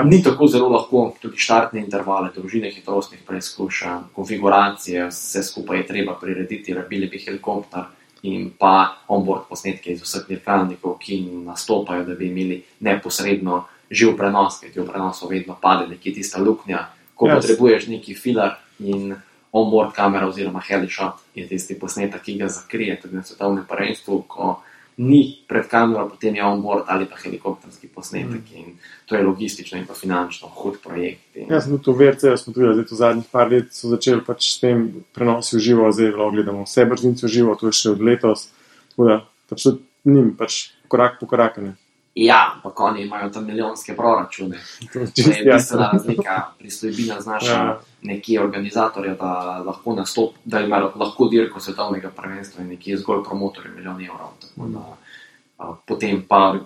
ni tako zelo lahko, tudi štartne intervale, dolžine hitrostnih preizkušanj, konfiguracije, vse skupaj je treba prirediti, rabili bi helikopter in pa onboard posnetke iz vseh dirkalnikov, ki nastopajo, da bi imeli neposredno živ prenos, ker ti v prenosu vedno pade nekje tista luknja, ko potrebuješ neki filar in onboard kamera oziroma helishot je tisti posnetek, ki ga zakrije, tudi na svetovnem prvenstvu, ko ni pred kamero, potem je onboard ali pa helikopterski posnetek in to je logistično in pa finančno hud projekt. Ja, sem tudi v VRC, smo tudi zdaj v zadnjih par let so začeli pač s tem prenosi v živo, zdaj gledamo vse brzince v živo, to je še od letos, tako da pač tudi njim pač korak po korakane. Ja, pa oni imajo tam milijonske proračune. To je bistvena razlika. Pristojbina znaša nekje organizatorja, da lahko nastop, da ima lahko dirko svetovnega prvenstva in nekje zgolj promotorje milijon evrov. Tako da potem pa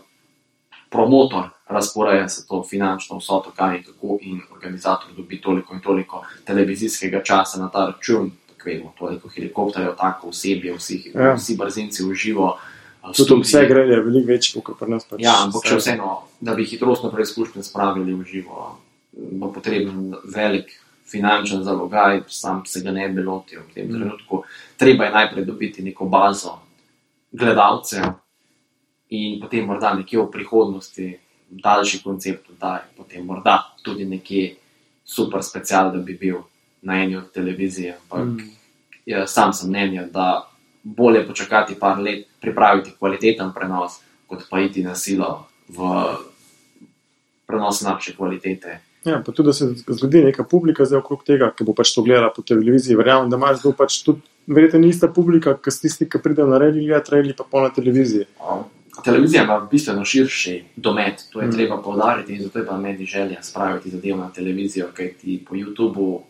promotor razporeja se to finančno vsoto, kaj in kako in organizator dobi toliko in toliko televizijskega časa na ta račun, tako vemo, toliko helikopterjev, tako osebje, vsi brzinci v živo. Tudi vse greje veliko večji, kot pri nas. Pač ja, ampak še vseeno, da bi hitrostno preizkušnje spravili v živo, bo potreben velik finančen zalogaj, sam se ga ne bi lotil v tem trenutku. Treba je najprej dobiti neko bazo gledalcev in potem morda nekje v prihodnosti daljši koncept oddaj, potem morda tudi nekje super special, da bi bil na eni od televizije. Ampak sam sem mnenja, da bolje počakati par let, pripraviti kvaliteten prenos, kot pa iti na silo v prenos slabše kvalitete. Ja, pa tudi, da se zgodi neka publika zdaj okrog tega, ki bo pač to gledala po televiziji. Verjamem, da imaš zdaj pač tudi verjetno ni ista publika, kot tisti, ki pridejo na rally gledati pa pol na televiziji. Televizija ima bistveno širši domet, to je treba poudariti in zato je pa meni želja spraviti zadevo na televizijo, kajti po YouTubeu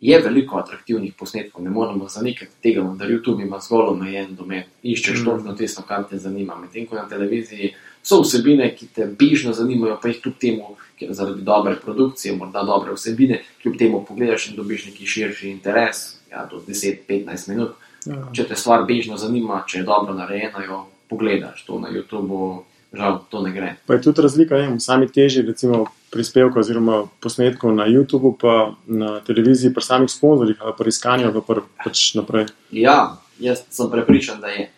je veliko atraktivnih posnetkov, ne moramo zanikati tega, da YouTube ima zgolj omejen domet, iščeš točno tisto, kar te zanima. Medtem ko na televiziji so vsebine, ki te bežno zanimajo, pa jih kljub temu, ker zaradi dobre produkcije, morda dobre vsebine, kljub temu pogledaš in dobiš neki širši interes, do 10-15 minut. Če te stvar bežno zanima, če je dobro narejena, jo pogledaš. To na YouTubeu žal to ne gre. Pa je tudi razlika, v sami teži, recimo prispevkov oziroma posnetkov na YouTubu, pa na televiziji, pri samih sponzorjih ali pri iskanju, pa pač naprej. Ja, jaz sem prepričan, da je.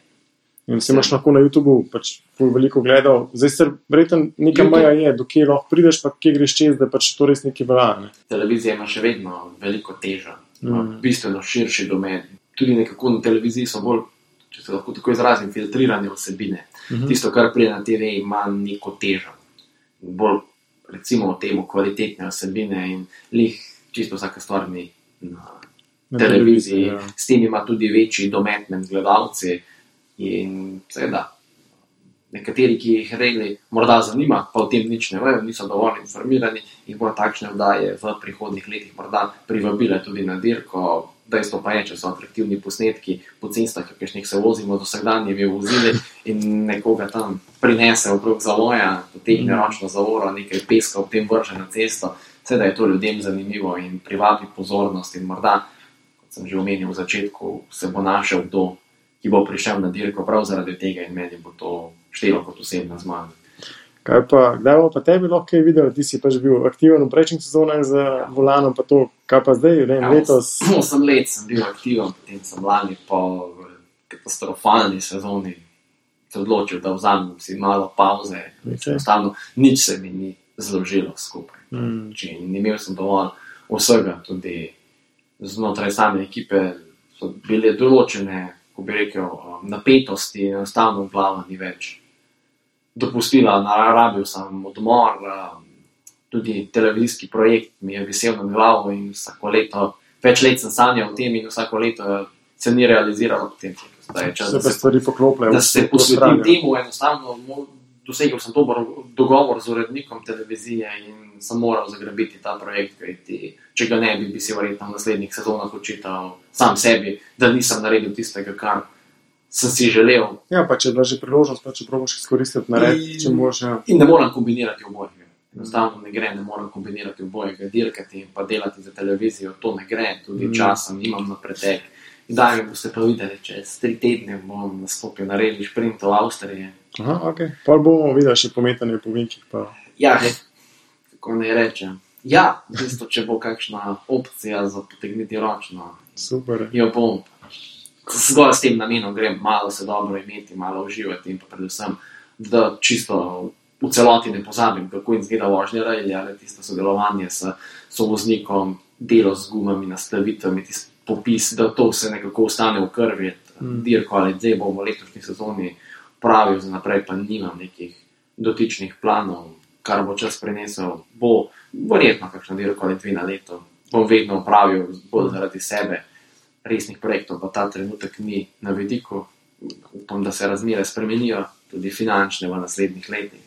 In se imaš lahko na YouTubu pač veliko gledal. Zdaj se verjetno neka meja je, do kje lahko prideš, pa kje greš čez, da pač to res nekaj velja. Ne? Televizija ima še vedno veliko težo, bistveno širši domen. Tudi nekako na televiziji so bolj, če se lahko tako izrazim, filtrirane vsebine. Tisto, kar pride na TV, ima neko težo. Bolj, recimo, temu kvalitetne vsebine in čisto vsaka stvar ni na televiziji. Ja. S tem ima tudi večji domet med gledalci in seveda nekateri, ki jih regli morda zanima, pa o tem nič ne vejo, niso dovolj informirani in bo takšne vdaje v prihodnih letih morda privabile tudi na dirko. Dejstvo pa je, če so atraktivni posnetki po cestah, kakšnih se vozimo z vsakdanjimi vozili in nekoga tam prinese okrog zavoja, potegne ročno zavoro, nekaj peska ob tem vrže na cesto, seveda je to ljudem zanimivo in privabi pozornost in morda, kot sem že omenil v začetku, se bo našel kdo, ki bo prišel na dirko prav zaradi tega in meni bo to štelo kot osebna zmaga. Kdaj bo pa tebi lahko kaj videl, ti si pač bil aktiven v prejšnjih sezonah za volanom, pa to, kaj pa zdaj, letos? 8 let sem bil aktiven, potem sem lani po katastrofalni sezoni se odločil, da vzamem si malo pauze. Enostavno, nič se mi ni zložilo skupaj. Imel sem dovolj vsega, tudi znotraj same ekipe so bile določene, ko bi rekel, napetosti, enostavno glava ni več dopustila, narabil sem odmor, tudi televizijski projekt mi je visel nad glavo in vsako leto, več let sem sanjal o tem in vsako leto se ni realiziralo potem. Se pa stvari poklopljajo. Da se posvetim temu, enostavno dosegel sem dober dogovor z urednikom televizije in sem moral zagrabiti ta projekt, kajti če ga ne bi si verjetno v naslednjih sezonah očital sam sebi, da nisem naredil tistega, kar sem si želel. Ja, pa če je bila že priložnost, pa če probaš izkoristiti narediti, če boš. Ja. In ne moram kombinirati obojega. Enostavno ne moram kombinirati obojega, dirkati in pa delati za televizijo, to ne gre, tudi časem imam na pretek. In daj mi boste pa videli, čez 3 tedne bom nastopil na reli šprint v Avstriji. Aha, ok. Pa bomo videli še pometanje po vinkih. Pa. Ja, kako ne rečem. Ja, v bistvu, če bo kakšna opcija za potegniti ročno. Super. Jo bom. Zgolj s tem namenom grem malo se dobro imeti, malo uživati in pa predvsem, da čisto v celoti ne pozabim, kako izgleda vožnja rally ali tisto sodelovanje s sovoznikom, delo z gumami, nastavitvami, tisti popis, da to se nekako ostane v krvi. Dirko ali zdaj bom v letošnji sezoni pravil, za naprej pa nimam nekih dotičnih planov, kar bo čas prinesel, bo verjetno kakšno dirko ali 2 na leto. Bom vedno pravil bolj zaradi sebe. Resnih projektov pa ta trenutek ni na vidiku. Upam, da se razmere spremenijo, tudi finančne v naslednjih letih.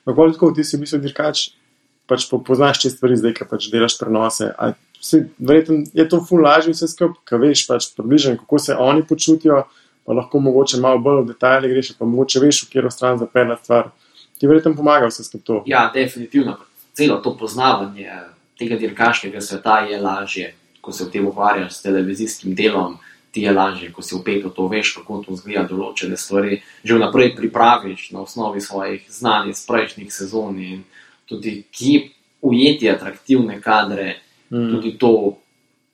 Tako, ti si v bistvu dirkač, pač poznaš te stvari zdaj, ki pač delaš prenose. Verjetno je to ful lažje vse skupaj, ki veš pač približno, kako se oni počutijo, pa lahko mogoče malo bolj v detajle greš, pa mogoče veš, v katero stran zapeljati stvar. Ti verjetno pomaga vse skupaj to. Ja, definitivno. Celo to poznavanje tega dirkaškega sveta je lažje. Ko se v tem ukvarjaš s televizijskim delom, ti je lažje, ko si vpet v to, veš, kako to izgleda določene stvari, že vnaprej pripraviš na osnovi svojih znanj iz prejšnjih sezon in tudi kje ujeti atraktivne kadre, tudi to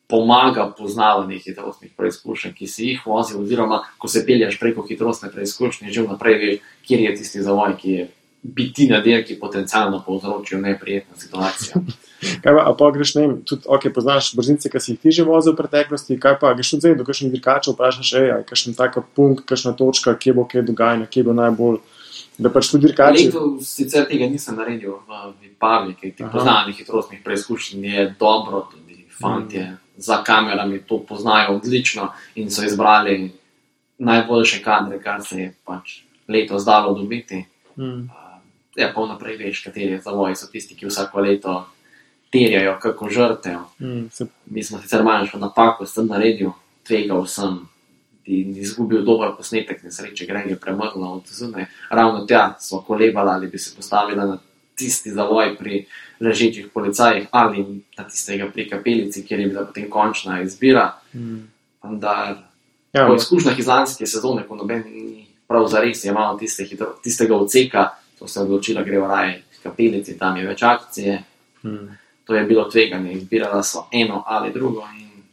pomaga poznavanje hitrostnih preizkušenj, ki si jih vozil, oziroma ko se pelješ preko hitrostne preizkušnje, že vnaprej veš, kjer je tisti zavoj, ki je biti na dirki potencialno povzročil neprijetno situacijo. Kaj pa greš, ne vem, tudi, poznaš brzince, ki si jih ti že vozil v preteklosti, kaj pa greš tudi zdaj do kakšnih dirkačev, vprašaš, kakšen taka punkt, kakšna točka, kje bo kaj dogajanje, kje bo najbolj, da pač tudi dirkači. Letos sicer tega nisem naredil v Vipavi, kaj ti poznanje hitrostnih preizkušenj je dobro, tudi fantje za kamerami to poznajo odlično in so izbrali najboljše kadre, kar se je pač letos dalo dobiti. Ja, pa vnaprej veš, kateri zavoji so tisti, ki vsako leto terjajo kako žrtev. Mi smo sicer manjšo napako sem naredil, tvegal sem in izgubil dober posnetek, nesreče Greg je premrla od zunaj. Ravno tja smo kolebali, ali bi se postavila na tisti zavoj pri ležečih policajih ali na tistega pri kapelici, kjer je bila potem končna izbira. Vendar po izkušnjah iz lanske sezone, ko noben ni prav zares je malo tistega odseka, to se je odločila, gre v raje k kapelici, tam je več akcije. To je bilo tveganje, izbirala so eno ali drugo.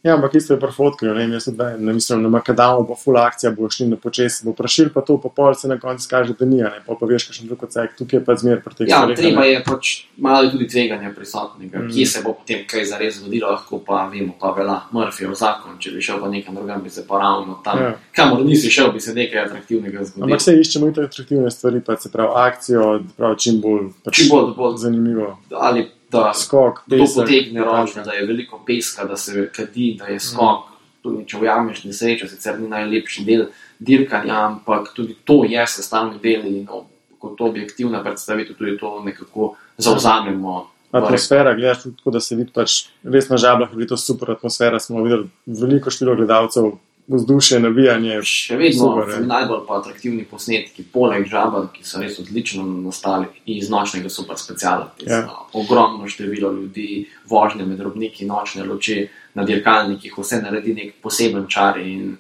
Ja, ampak isto je pri fotki, jaz ne mislim, na makadamu bo full akcija, bo šli na počesi, bo prašil pa to, pa pol se na koncu kaže, da ni, pol pa veš, kakšen drug odsek, tukaj je pa zmer pri teh stvareh. Ja, treba je pač malo tudi tveganja prisotnega, kje se bo potem kaj zares zgodilo, lahko pa vemo, pa vela Murphyjev zakon, če bi šel pa nekam drugam, bi se pa ravno tam, kamor nisi šel, bi se nekaj atraktivnega zgodilo. Ampak se iščemo in atraktivne stvari, pa se pravi akcijo, pravi čim bolj zanimivo. Ali da skok, to potegne ročno, da je veliko peska, da se kadi, da je skok, tudi če ujameš nesrečo, sicer ni najlepši del dirkanja, ampak tudi to je sestavni del in kot objektivna predstavitev tudi to nekako zavzamemo. Atmosfera, gledaš tako, da se vidi pač res na Žabljah, je to super atmosfera, smo videli veliko število gledalcev, vzdušje, navijanje. Še vedno najbolj pa atraktivni posnetki, poleg Žabelj, ki so res odlično nastali iz nočnega super speciala. Ogromno število ljudi, vožnje med robniki, nočne luči na dirkalnikih, vse naredi nek poseben čar in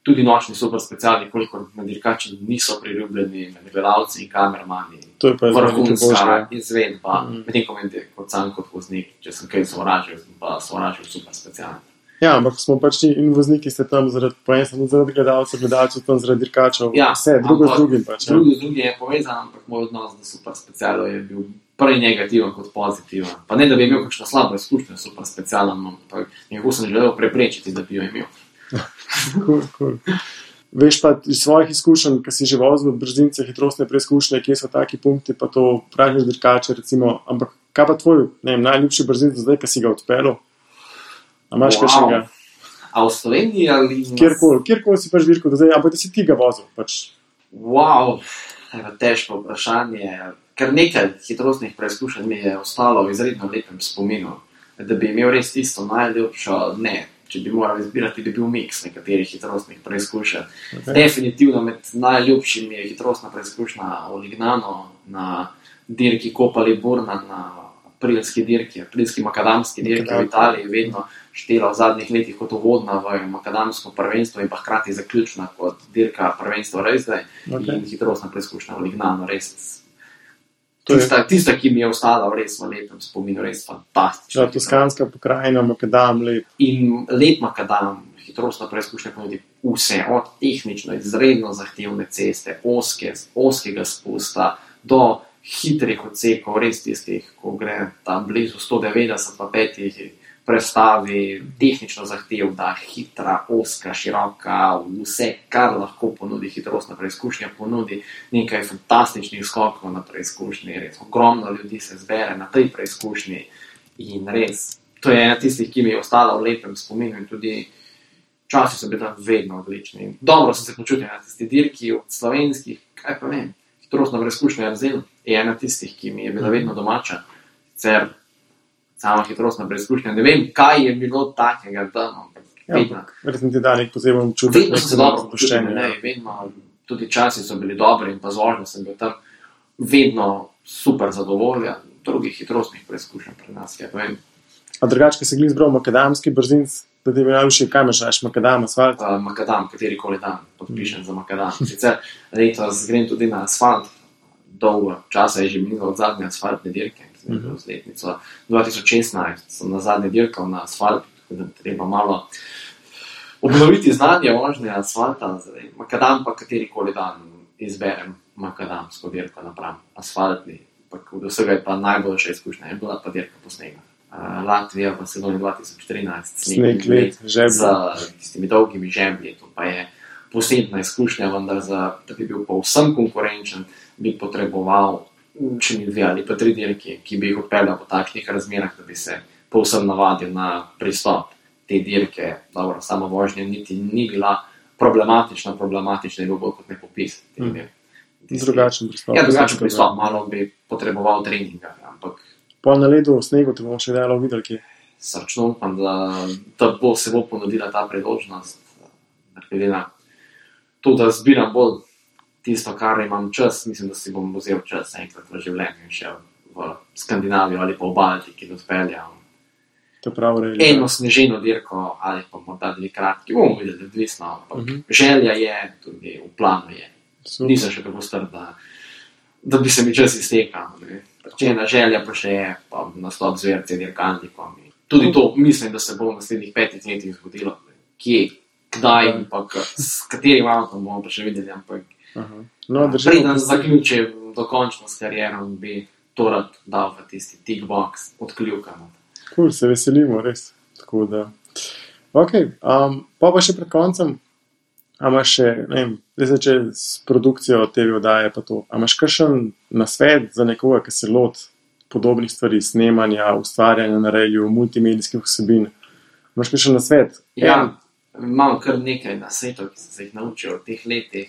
tudi nočni super speciali, kolikor na dirkači niso priljubljeni med gledalci in kamermani. To je pa vrhunska izvedba, medtem ko meni kot sam kot voznik, če sem kaj sovražil, sem pa sovražil super special. Ja, ampak smo pač in vozniki ste tam zaradi gledalcev tam zaradi dirkačev, vse, drugo z drugim pač. Drugo z drugim je povezan, ampak moj odnos do super specialov je bil prej negativen kot pozitiven. Pa ne, da bi imel kakšno slabo izkušnjo s super specialom, ampak nekako sem želel preprečiti, da bi jo imel. Cool. Veš pa iz svojih izkušenj, ki si že vozil v brzince, hitrostne preizkušnje, kje so taki punkti, pa to praviš dirkače, recimo, ampak kaj pa tvoj, najljubši brzinc zdaj, ki si ga odpeljal? A imaš kakšnega? A v Sloveniji ali... Kjerkoli si pač dirkal do zdaj, ampak da si ti ga vozil, pač. Wow, težko vprašanje. Ker nekaj hitrostnih preizkušenj mi je ostalo v izredno lepem spominu. Da bi imel res tisto najljubšo, ne, če bi moral izbirati, bi bil miks nekaterih hitrostnih preizkušenj. Okay. Definitivno med najljubšimi je hitrostna preizkušnja v Lignano na dirki Coppa Liburna, na aprilski makadamski dirki v Italiji, vedno štela v zadnjih letih kot uvodna v makadamsko prvenstvo in pa hkrati zaključna kot dirka prvenstvo Race in hitrostna preizkušnja v Lignano, res tista, ki mi je ostala res v lepem spominu, res fantastična. Toskanska pokrajina, makadam, lep. In lep makadam, hitrostna preizkušnja ponudi vse, od tehnično izredno zahtevne ceste, oskega spusta, do hitrih odsekov, res tistih, ko gre tam blizu 190 pa 5 prestavi, tehnično zahtevna, hitra, oska, široka, vse, kar lahko ponudi hitrostna preizkušnja, ponudi nekaj fantastičnih skokov na preizkušnji, res ogromno ljudi se zbere na tej preizkušnji in res, to je ena tistih, ki mi je ostala v lepem spominu in tudi časi so bili tam vedno odlični. Dobro sem se počutil na tisti dirki od slovenskih, kaj pa vem, hitrostna preizkušnja Arzel je ena tistih, ki mi je bila vedno domača, sicer sama hitrostna preizkušnja, ne vem, kaj je bilo takega tam, ampak verjetno ti da nek poseben čutek. Vedno sem se dobro počutil, vedno, tudi časi so bili dobri in pa z vožnjo sem bil tam vedno super zadovoljen, drugih hitrostnih preizkušenj pri nas, ja, vem. A drugače, ki si glih zbral makadamski brzinc, da ti bi najljubši, kaj imaš raš, makadam, asfalt? Makadam, katerikoli dan podpišem za makadam. Sicer letos grem tudi na asfalt, dolgo časa je že minilo od zadnje asfaltne dirke, z letnico 2016 sem na zadnje dirkal na asfalt, tako da treba malo obnoviti znanje vožnje asfalta, makadam pa katerikoli dan izberem makadamsko dirko napram asfaltni, pa od vsega je pa najboljša izkušnja, je bila pa dirka po snegu. Latvija v sezoni 2013, sneg let z tistimi dolgimi žemlji, to pa je posebna izkušnja, vendar da bi bil povsem konkurenčen, bi potreboval še mi 2 ali pa 3 dirki, ki bi jih odpeljal po takšnih razmerah, da bi se povsem navadil na pristop te dirke. Dobro, sama vožnja niti ni bila problematična je bil bolj kot nepopis. Drugačen pristop. Ja, drugačen pristop, malo bi potreboval treninga, ampak pol na ledu v snegu te bomo še dalo videli, kje? Srčno upam, da se bo ponudila ta priložnost, glede na to, da zbiram bolj tisto, kar imam čas, mislim, da si bom vzel čas enkrat v življenju in šel v Skandinavijo ali pa v Baltiki, da odpeljam eno sneženo dirko ali pa morda 2 kratki, bomo videli, odvisno, ampak želja je, tudi v planu je. Nisem še tako star, da da bi se mi čas iztekal. Če ena želja pa še je, pa nastop z VRC dirkalnikom. Tudi to mislim, da se bo v naslednjih 5 letih zgodilo. Kje, kdaj in pa s katerim avtom bomo pa še videli, ampak preden zaključim dokončno s karierom, bi to rad dal v tisti tick box odkljukano. Cool, se veselimo, res. Tako da. Ok, pa še pred koncem, a imaš še, ne vem, zdaj če s produkcijo TV oddaje pa to, a imaš kakšen nasvet za nekoga, ki se loti podobnih stvari, snemanja, ustvarjanja na radiju, multimedijskih vsebin? Imaš kakšen nasvet? Ja, imam kar nekaj nasvetov, ki sem se jih naučil v teh letih.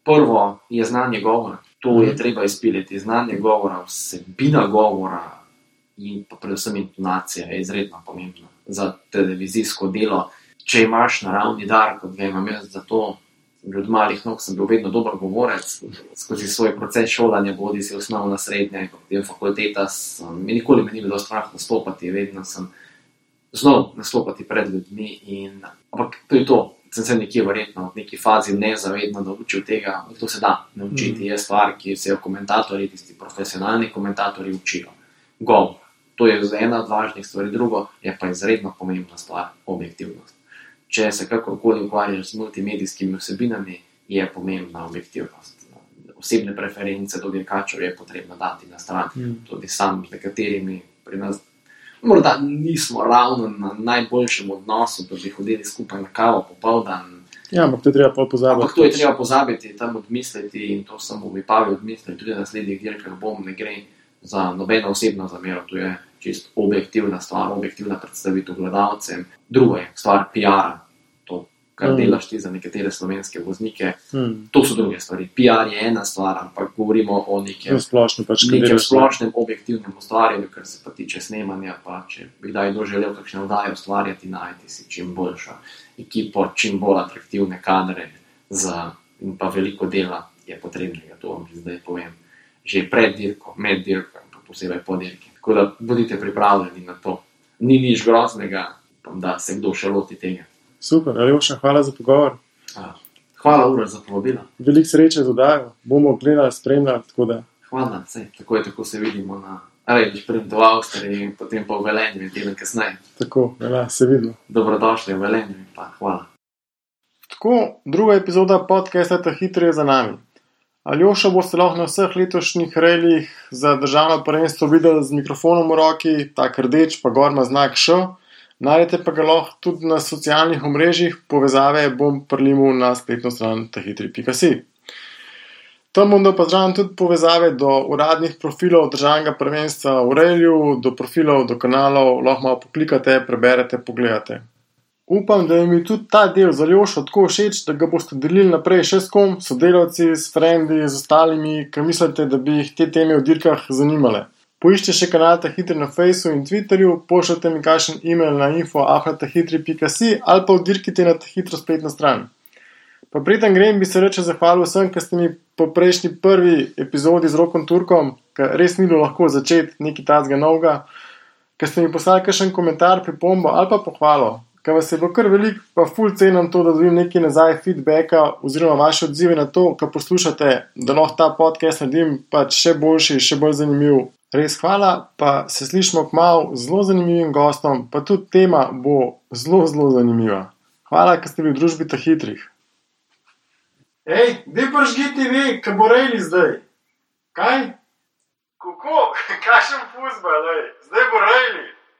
Prvo je znanje govora. To je treba izpiliti. Znanje govora, vsebina govora in pa predvsem intonacija je izredno pomembna za televizijsko delo. Če imaš naravni dar, kot ga imam jaz za to, že od malih nog sem bil vedno dober govorec, skozi svoj proces šolanja, bodi si osnovna, srednja in potem fakulteta, nikoli me ni bilo strah nastopati, vedno sem znal nastopati pred ljudmi, ampak to je to, sem se nekje verjetno v neki fazi nezavedno naučil tega, to se da naučiti, je stvar, ki se jo komentatorji, tisti profesionalni komentatorji učijo. Govor, to je ena od važnih stvari, drugo je pa izredno pomembna stvar, objektivnost. Če se kakorkoli ukvarjaš z multimedijskimi vsebinami, je pomembna objektivnost. Osebne preference do dirkačev je potrebno dati na stran. Tudi sam z nekaterimi pri nas morda nismo ravno na najboljšem odnosu, da bi hodili skupaj na kavo popoldan. Ja, ampak to je treba pozabiti. Ampak to je treba pozabiti, tam odmisliti in to sem v Vipavi odmislil, tudi na naslednjih dirkah ne gre za nobeno osebno zamero, to je čisto objektivna stvar, objektivna predstavitev gledalcem. Drugo je stvar PR-a, to, kar delaš ti za nekatere slovenske voznike, to so druge stvari. PR je ena stvar, ampak govorimo o nekem splošnem objektivnem ustvarjanju, kar se pa tiče snemanja, pa če bi kdaj doželel kakšne oddaje ustvarjati, najti si čim boljšo ekipo, čim bolj atraktivne kadre in pa veliko dela je potrebnega, to vam zdaj povem. Že pred dirko, med dirko, pa posebej po dirki. Tako da bodite pripravljeni na to. Ni nič groznega, da se kdo še loti tega. Super, Aljoša, hvala za pogovor. Hvala, Uroš, za povabilo. Veliko sreče z oddajo, bomo gledali, spremljali, tako da. Hvala, tako se vidimo na sprem v Avstriji in potem pa v Velenju in teden kasneje. Tako, se vidimo. Dobrodošli v Velenju in pa hvala. Tako, druga epizoda podcasta Ta hitri je za nami. Aljošo boste lahko na vseh letošnjih rallyjih za državno prvenstvo videli z mikrofonom v roki, tak rdeč, pa gor ima znak Š. Najdete pa ga lahko tudi na socialnih omrežjih, povezave bom prilimil na spletno stran tahitri.si. Tam bom pozdravljam tudi povezave do uradnih profilov državnega prvenstva v rallyju, do profilov, do kanalov, lahko malo poklikate, preberete, pogledate. Upam, da mi tudi ta del z Aljošo tako všeč, da ga boste delili naprej še s kom, sodelavci, s frendi, z ostalimi, ki mislite, da bi jih te teme v dirkah zanimale. Poiščite še kanal Ta hitri na Facebooku in Twitterju, pošljite mi kakšen e-mail na info@tahitri.si ali pa vdirkite na Ta hitro spletno stran. Pa preden grem, bi se reče zahvalil vsem, ki ste mi po prejšnji prvi epizodi z Rokom Turkom, ker res ni bilo lahko začeti nekaj tazga novega, ker ste mi poslali kakšen komentar, pripombo ali pa pohvalo. Ker vas je bilo kar veliko, pa ful cenim to, da dobim nekaj nazaj feedbacka oziroma vaše odzive na to, kar poslušate, da lahko ta podcast naredim pač še boljši, še bolj zanimiv. Res hvala, pa se slišimo kmalu z zelo zanimivim gostom, pa tudi tema bo zelo, zelo zanimiva. Hvala, ker ste bili v družbi Ta hitrih. Ej, dej prižgi TV, kaj bo rejli zdaj? Kaj? Kako? Kakšen fuzbal, zdaj bo rejli?